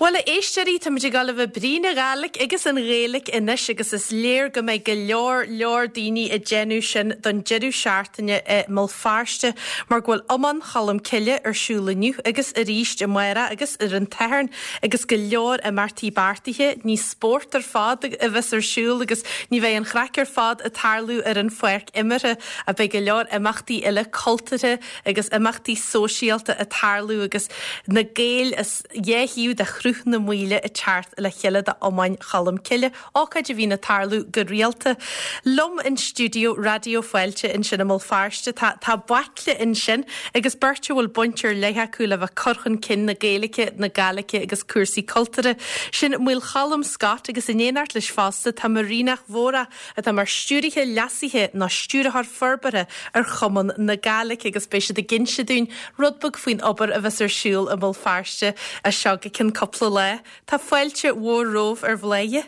Bhuel, a éisteoirí, táimid ag dul a bheith ag brí na Gàidhlig agus an Ghaeilge anois agus is léir go mbeidh go leor, leor daoine ag déanamh sin don deireadh seachtaine i mBéal Feirste mar go bhfuil Iomáin Cholm Cille ar siúl inniu agus arís amárach agus ar an tSatharn agus go leor imeachtaí beartaithe. Ní spórt ar fad a bheas ar siúl agus ní bheidh an chraic ar fad ag tarlú ar an pháirc imeartha ach beidh go leor imeachtaí eile cultúrtha agus imeachtaí sóisialta ag tarlú agus na Gaeil as dhá thaobh de Shruth na Maoile ag teacht le chéile d'Iomáin Cholm Cille, ócáid a bhíonn ag tarlú go rialta. Liom in stiúideo Raidió Fáilte ansin i mBéal Feirste tá tá baicle ansin agus beirt a bhfuil baint ar leith acu le bheith ag cur chun cinn na Gaeilge, na Gàidhlige agus cúrsaí cultúrtha. Sin Maolcholm Scott agus in éineacht leis fosta tá Marìnach Mhòrach atá mar stiúrtha leasaithe nó stiúrthóir forbartha ar Chumann na Gàidhlig agus beidh siad ag inse dúinn rud beag faoin obair a bheas ar siúl i mBéal Feirste as seo go ceann cúpla lá. Tá fáilte mhór romhaibh ar Bhladhaire.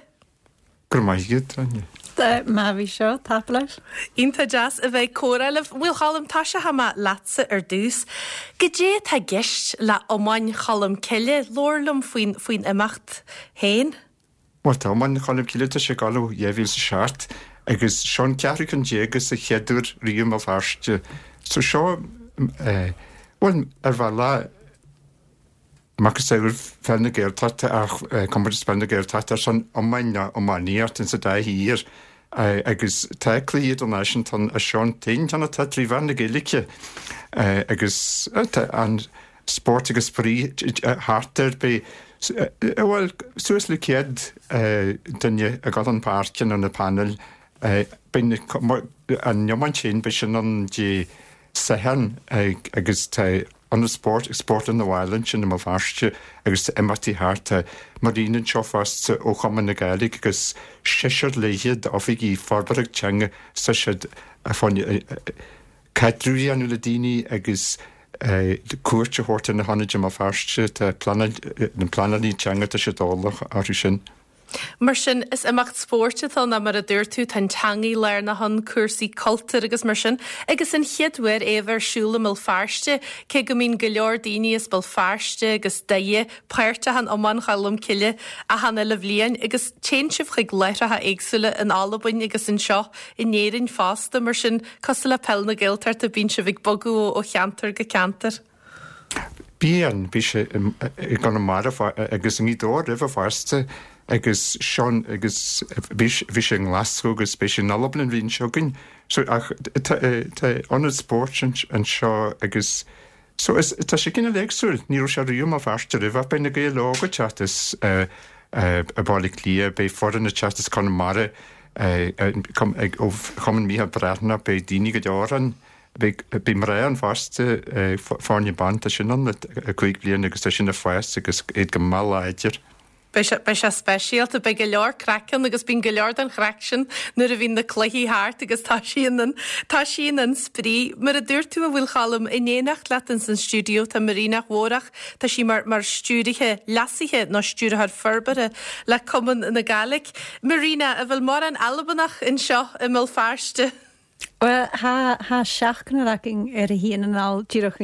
Go raibh maith agat, Áine. Má bhí seo, tapa leis. Iontach deas a bheith ag comhrá libh. Maolcholm, tosóidh mé leatsa ar dtús. Goidé atá i gceist le Iomáin Cholm Cille? Labhair liom faoin faoin imeacht féin. Bhuel, tá Iomáin Cholm Cille, tá sé ag dul ó 2007 agus seo an ceathrú ceann déag agus an chéad uair riamh i mBéal Feirste. So seo, eh, bhuel, ar bhealach, macasamhail Pheil na Gaeltachta ach eh, comórtas Peil na Gaeltachta ar son iomáin nó iománaíocht insa dá thír eh, agus tá cluichí idirnáisiúnta ann is seo an t-aon cheann atá trí mheán na Gaeilge eh, agus eh, tá an spórt agus spraoi thart air. Beidh, bhuel, suas le 100 duine ag dul chun páirce nó na painéil. Beidh an iomáint féin, beidh sin ann Dé Sathairn agus tá Ionad Spóirt ag Spórtlann na bhFál ansin i mBéal Feirste agus tá imeachtaí thart. Tá Marina anseo fosta ó Chumann na Gàidhlig agus seisear léithe d'oifigigh forbartha teanga tá siad fá caidreamh a dhéanamh le daoine agus cuairt a thabhairt ar na hionaid i mBéal Feirste. Tá pleanáil, na pleanálaí teanga, tá siad eolach orthu sin. Mar sin, is imeacht spóirt atá ann, mar a dúirt tú, tá an teangaidh lárnach ann, cúrsaí cultúir agus mar sin. Agus an chéad uair é a bheith ar siúl i mBéal Feirste, cé go mbíonn go leor daoine as Béal Feirste agus Doire páirteach in Iomáin Cholm Cille achan uile bhliain agus téann sibh chuig láithreacha éagsúla in Albain agus anseo in Éirinn fosta, mar sin cosúil le Peil na Gaeltachta bíonn sibh ag bogadh ó cheantar go ceantar. Bíonn, bhí sé i gConamara agus i nGaoth Dobhair roimhe fosta agus Seán agus bhí sé i nGlaschú agus beidh sé in Albain an bhliain seo chugainn. So ach tá ionad spóirt anseo agus So is, tá sé cineál éagsúil, ní raibh sé riamh i mBéal Feirste roimhe ach beidh na Gaeil Óga ag teacht as Baile Átha Cliath, beidh foireann ag teacht as Conamara, ó Chumann Mícheál Breathnach, beidh daoine go leor ann, beidh, beidh mná ann fosta, foirne ban, tá sin ann le 5 bliana agus tá sin ag fás agus iad go maith láidir. Beidh sé, beidh sé speisialta. Beidh go leor craic ann agus bíonn go leor den chraic sin nuair a bhíonn na cluichí thart agus toisíonn an, toisíonn an spraoi. Mar a dúirt tú, a Mhaolcholm, in éineacht leat ins an stiúideo tá Marìnach Mhòrach, tá sí mar, mar stiúrtha leasaithe nó stiúrthóir forbartha le Cumann na Gàidhlig. Marina, an bhfuil mórán Albanach anseo i mBéal Feirste? Bhuel, tha, tha seachnair againn air a shuíonn anall díreach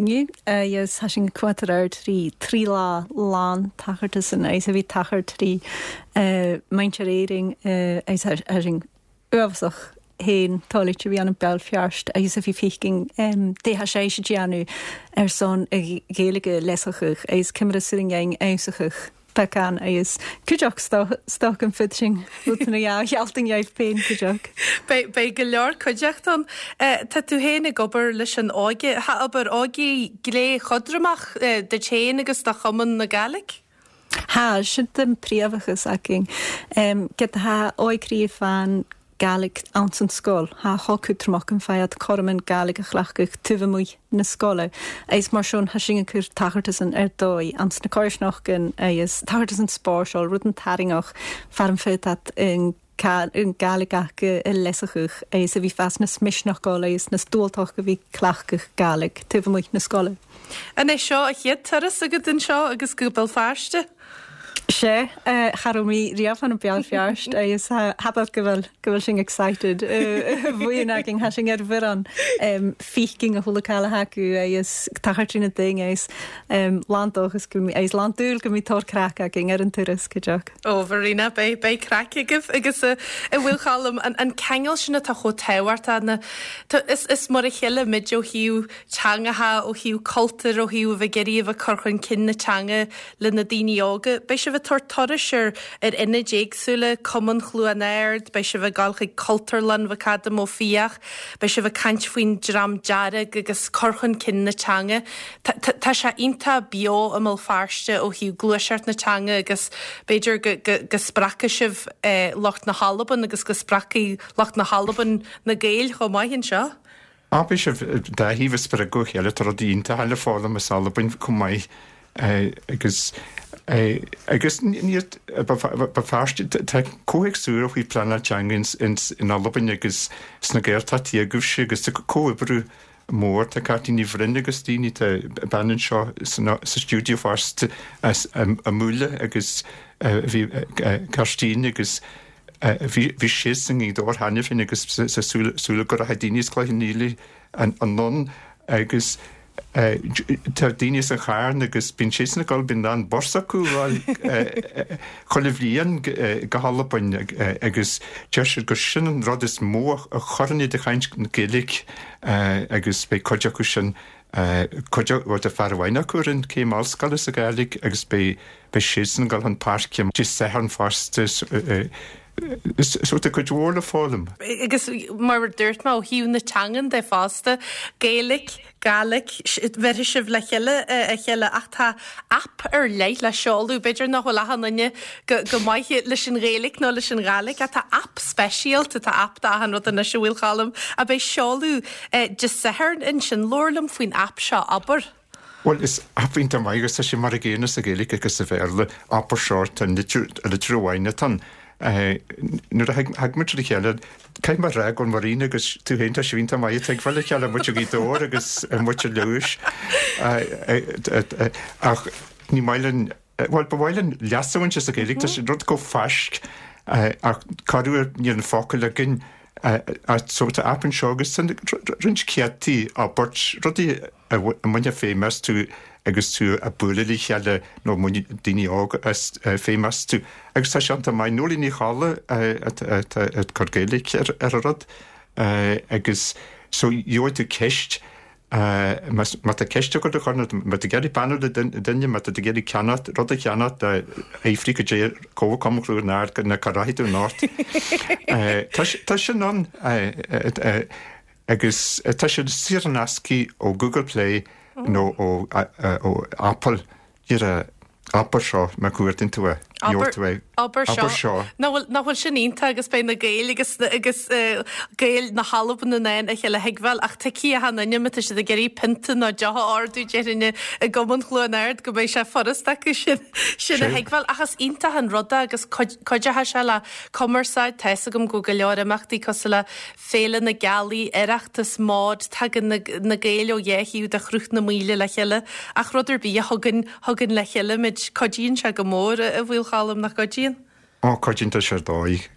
inniu agus tha sinn cuat ar aird trí trí lá lán tachartasan agus a bhí tachar trí muintir Éirinn agus tha sinn uafásach féin toilite a bhí ann i Béal Feirst agus a bhí fícinn dé tha sé a déanamh ar son a Ghaeilge leasachach agus coimre suain fheabhsachach. Beacán agus cuideachd stoc an fud sin rud na dhá ghealtain dheimh féin cuideachd. Beidh, beidh go leor cuideachta ann. Tá tú féin ag obair leis an óige. Tá obair óige glé chodromach duit féin agus do Chumann na Gàidhlig? Tha, sin an príomhachas againn. Ged tha óigrí fan Gàidhlig anns an sgoil. Tha cho cútramach an fad coram an Gàidhlig a chleachtadh taobh amuigh na sgoile agus mar sin tha sinn ag cur tachartasan ar dóigh anns na coirsneachtain agus tachartasan spáirseáil, rud an tarraingeach far an fad at an Gàidhlig aca a leasachadh agus a bhí fas na smisneacháil agus na stualtach a bhí cleachtadh Gàidhlig taobh amuigh na sgoile. An é seo a chéad turas agat anseo agus go Béal Feirste? Sea, cha raibh mé riamh ann Béal Feirste agus tha go bhfuil go bhfuil sinn excited bhuíon againn, tha sinn ar mhuireann fícing a chuala cailleach acu agus tachar trína ding agus lán dóchas go agus lán dúil go mbeidh tóir craic againn ar an turas, cuideach. Ó, Mharina, beidh, beidh craic agaibh agus a Mhaolcholm, an, an ceangal sin atá chomh tábhachtach, na, tá, is, is mar a chéile muid ó thaobh teangacha, ó thaobh cultúir, ó thaobh a bheith ag iarraidh a bheith ag cur chun cinn na teanga le na daoine óga. Beidh sibh ag tabhairt turais ar ar ionaid éagsúla, Cumann Chluain Ard, beidh sibh ag dul chuig Cultúrlann McAdam Ó Fiaich, beidh sibh ag caint faoin Dream Dearg agus cur chun cinn na teanga. Tá sé iontach beo i mBéal Feirste ó thaobh gluaiseacht na teanga agus b'fhéidir go go go spreagfaidh sibh lucht na hAlban agus go spreagfaidh lucht na hAlban na Gaeil chomh maith anseo. Á, beidh sibh dá thaobh ag spreagadh a chéile, tá rudaí iontacha le foghlaim as Albain chomh maith agus agus ní Béal Feirste, tá comhthéacs úr ó thaobh pleanáil teanga in Albain agus sna Gaeltachtaí agaibhse agus tá comhoibriú mór, tá Cáitlín Ní Bhroin agus daoine, tá bean anseo sa stiúideo fosta as an mBuaile agus bhí Kirsteen agus Bhí siad i nGaoth Dobhair cheana féin agus sa súil go rachaidh daoine as Cloich Cheann Fhaola anonn agus tá daoine as an Charn agus bíonn siadsan ag dul, bíonn lán bus acu ag dul chuile bhliain go hAlbain agus deir siad gur sin an rud is mó a chuireann iad ag caint Gaeilge agus beidh cuid acu sin cuid bhuel tá fear amháin acu a rinne céim ollscoile sa Ghàidhlig agus beidh beidh siadsan ag dul chun páirce Dé Sathairn fosta so tá cuid mhór le foghlaim. Agus mar a dúirt mé ó thaobh na teangan de fosta, Gaeilge, Gàidhlig, bheirfidh sibh le chéile a chéile ach tá aip ar leith le seoladh, b'fhéidir nach bhfuil achan duine go maith leis an Ghaeilge nó leis an Ghàidhlig ach tá aip speisialta, tá aip d'achan rud anois a Mhaolcholm, a bheidh seoladh Dé Sathairn ansin. Labhair liom faoin aip seo, abair. Bhuel, is aip iontach maith agus tá sé mar an gcéanna sa Ghaeilge agus sa Bhéarla, Abair Seo, tá litir amháin atá ann. Nuair a thig muid le chéile, caithfidh mé a rá go bhfuil Marina agus tú féin, tá sibh iontach maith ag tuigbheáil a chéile, muid ó Ghaoth Dobhair agus muid ó Leodhais. Ach ní maith linn, bhuel, ba mhaith linn leas a bhaint as an Ghaeilge, tá sé rud chomh fáisc ach corruair níl an focal againn. So tá aip anseo agus tá roinnt céadtaí abairt, rudaí a mbainfeá feidhm astu agus tú ag bualadh le chéile nó mbainfidh daoine óga feidhm astu. Agus tá sé iontach maith. Noeleen Ní Cholla atá ag cur Gaeilge ar an rud agus so gheobhaidh tú ceist, má tá ceist agat a chur nó má tá tú ag iarraidh beannú le duine, má tá tú ag iarraidh ceannacht, rud a cheannacht, fiafraigh cad é Comharchumann Chluain Ard nó cá rachaidh tú anocht. Tá sin ann. Agus tá siad saor in aisce ó Google Play nó ó Apple. Díreach abair seo má chuardaíonn tú é, gheobhaidh tú é. Abair seo. Nach bhfuil, nach bhfuil sin iontach agus beidh na Gaeil agus, agus Gaeil na hAlban in ann a chéile a thuigbheáil ach tuigfidh achan duine má tá siad ag iarraidh pionta nó deoch a ordú déarfainn i gCumann Chluain Ard go mbeidh sé furast acu sin, sin a thuigbheáil. Ach is iontach an rud é agus cuideoidh sé le cumarsáid, tá fhios agam go bhfuil go leor imeachtaí cosúil le Féile na Gealaí, Oireachtas, MÓD, tagann na Gaeil ó dhá thaobh de Shruth na Maoile le chéile ach rud ar bith a thugann, thugann le chéile muid, cuidíonn sé go mór, a Mhaolcholm, nach gcuidíonn? Ó, cuidíonn, tá sé ar dóigh,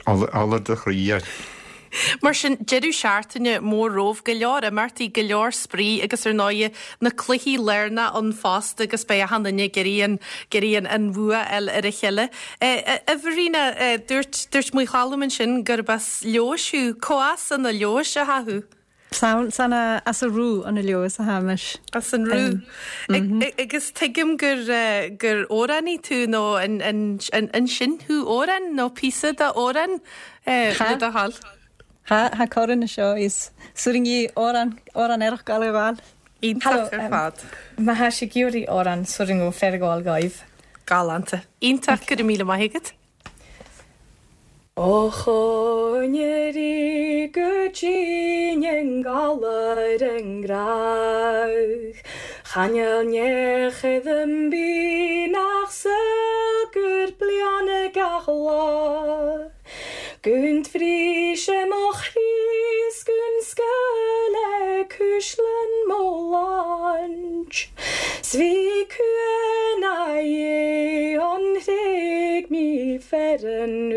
ola do chroí é. Mar sin, deireadh seachtaine mór romhaibh, go leor imeachtaí, go leor spraoi agus ar ndóighe na cluichí lárnacha ann fosta agus beidh achan duine ag iarraidh an, ag iarraidh an, an bhua a fháil ar a chéile. A Mharina, dúirt, dúirt Maolcholm ansin gurb as Leodhais thú. Cá as an Leodhais atá thú? San, san as a' Rubh an Leodhas athá mise. As an Rubh. Agus tuigim gur, gur amhránaí tú nó an, an, an, an-seinn thú amhrán nó píosa d'amhrán le do thoil? Tha, tha corran anseo is suirngí amhrán, amhrán aerach gabháil a ghabháil. Iontach ar fad. Má thá sé ag iarraidh amhrán suirng ó féar a ghabháil dóibh. Galánta. Iontach, go raibh míle maith agat. Ó choinnir í go dtí an galar an gcreach, Chan eil neach an bith nach saol gur bliana gach lá. Gun bhris sé mo chroí 's gun scaoileadh cuisleann mo laint, 's bhí cuan aghaidh an thréig. Ferann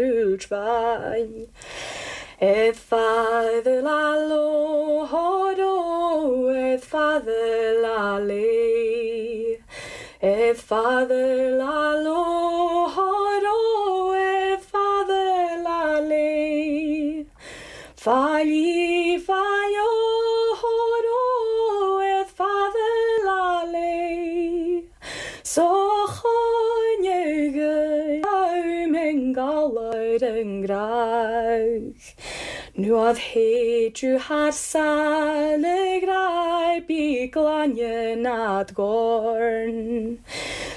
Eth father la lo horo, eth father la le. Eth father la lo horo, eth father la le. Failli faio horo, eth father la le. So choinne galar yn graig. Nuad héidir thar sa le bí glaine nad gorn.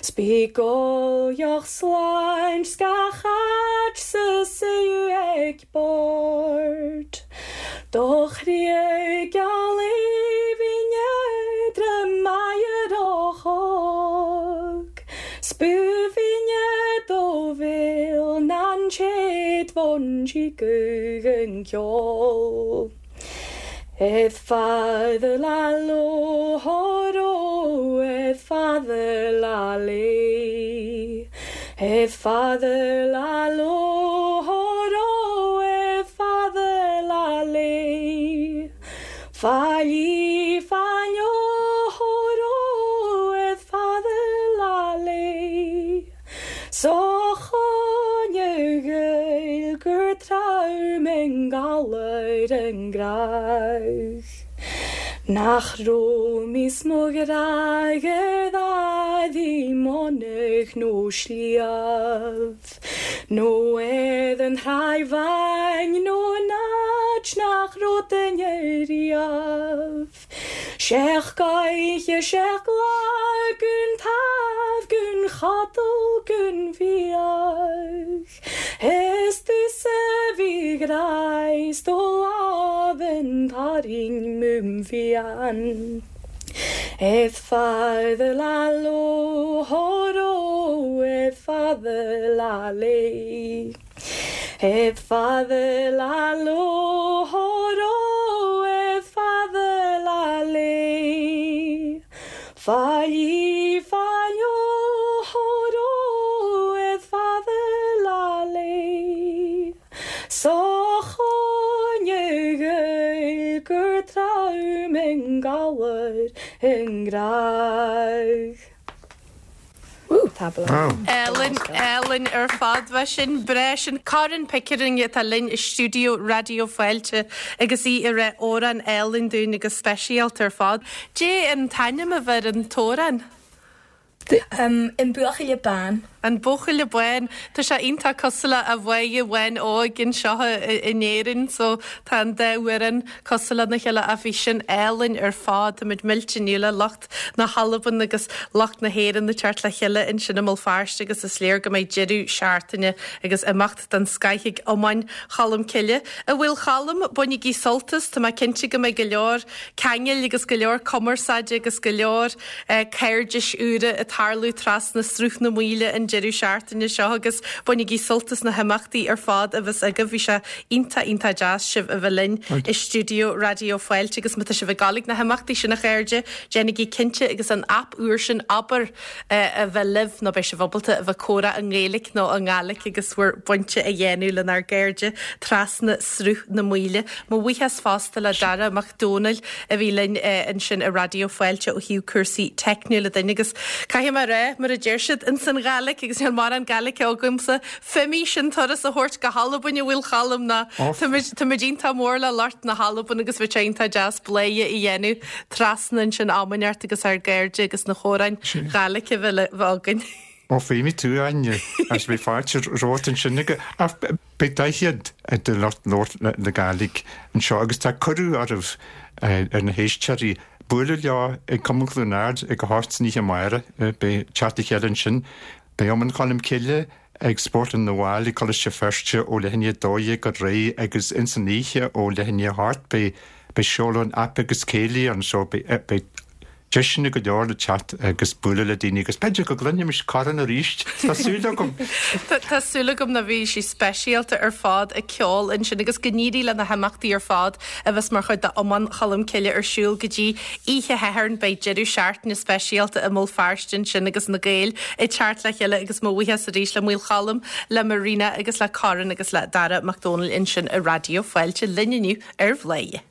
Spígol joch sláint scachait sa séú ag bord. Do chrí geall maiar ochog. Spúfinne do bhil nan chéad bhon sí an ceol. Eth father la lo horo, eth father la le. Eth father la lo horo, eth father la le. Failli faio horo, eth father la le. So choinne gael gur traum en galar en graig. Nach romis mo graig ddi monach nó sliabh. Nó edd yn rhai fain nó nach nach rod yn riaf. Sech gaiche sech la gun taf gun chadal gun fiach. Es du se vi greist og laven taring mumfian. Eth father la lo horo, eth father la le. Eth father la lo horo, eth father la le. Failli faio horo, eth father la le. So choinne gael gur traum en galar en graig. Wow. Ellen, Ellen ar fad bheit sin breis sin Karen Pickering atá linn i stiúideo Raidió Fáilte agus í ag rá amhrán álainn dúinn agus speisialta ar fad. Dé an t-ainm a bheith ar an t-amhrán? An Buachaille Bán. An Buachaille Bán. Tá sé iontach cosúil le A Mháire Bháin Óg anseo in Éirinn so tá an dá amhrán cosúil lena chéile ach bhí sin álainn ar fad. Táimid millte inniu le lucht na hAlban agus lucht na hÉireann ag teacht le chéile ansin i mBéal Feirste agus is léir go mbeidh deireadh seachtaine agus imeacht den scoith ag Iomáin Cholm Cille. A Mhaolcholm, bainigí sult as, tá mé cinnte go mbeidh go leor ceangail agus go leor cumarsáide agus go leor cairdis úra ag tarlú trasna Sruth na Maoile an deireadh seachtaine seo agus bainigí sult as na himeachtaí ar fad a bheas agaibh. Bhí sé iontach, iontach deas sibh a bheith linn i stiúideo Raidió Fáilte agus má tá sibh ag dul ag na himeachtaí sin a chairde, déanaigí cinnte agus an aip úr sin Abair a bheith libh nó beidh sibh ábalta a bheith ag comhrá i nGaeilge nó i nGàidhlig agus bhur bpointe a dhéanamh lenár gcairde trasna Sruth na Maoile. Mo bhuíochas fosta le Dara Mac Dónaill a bhí linn ansin i Raidió Fáilte ó thaobh cúrsaí teicniúla dúinn agus caithfidh mé a rá, mar a deir siad ins an Ghàidhlig, agus níl mórán Gàidhlig agamsa, Feumaidh sinn turas a thabhairt go hAlbain a Mhaolcholm ná táimid iontach mór le lucht na hAlban agus bheadh sé iontach deas bladhaire a dhéanamh trasna ansin am inteacht agus ár gcairde agus na comhráin Ghàidhlig a bheith againn. Ó feumaidh tú, Áine, agus beidh fáilte romhat ansin ach beidh daichead de lucht labhairt na Gàidhlig anseo agus tá cuireadh oraibh ar na héisteoirí bualadh leo ag Cumann Chluain Ard ag a hocht san oíche amárach. Beidh teacht le chéile ansin. Beidh Iomann Cholm Cille ag Spórtlann na bhFál ag Coláiste Feirste ó leath i ndiaidh 12 ar aghaidh agus ins an oíche ó leath i ndiaidh a hocht beidh seoladh an aip agus céilí ann so beidh. Deiseanna go leor le teacht agus bualadh le daoine agus b'fhéidir go gcluinfimis Corin arís, tá súil agam! Tá súil agam ná bhí sí speisialta ar fad ag ceol ansin agus go n-éirí le na himeachtaí ar fad a bheas mar chuid de Iomáin Cholm Cille ar siúl go dtí oíche Shathairn. Beidh deireadh seachtaine speisialta i mBéal Feirste ansin agus na Gaeil ag teacht le chéile agus mo bhuíochas arís le Maolcholm, le Marina agus le Corin agus le Dara Mac Dónaill ansin i Raidió Fáilte linn inniu ar Bhladhaire.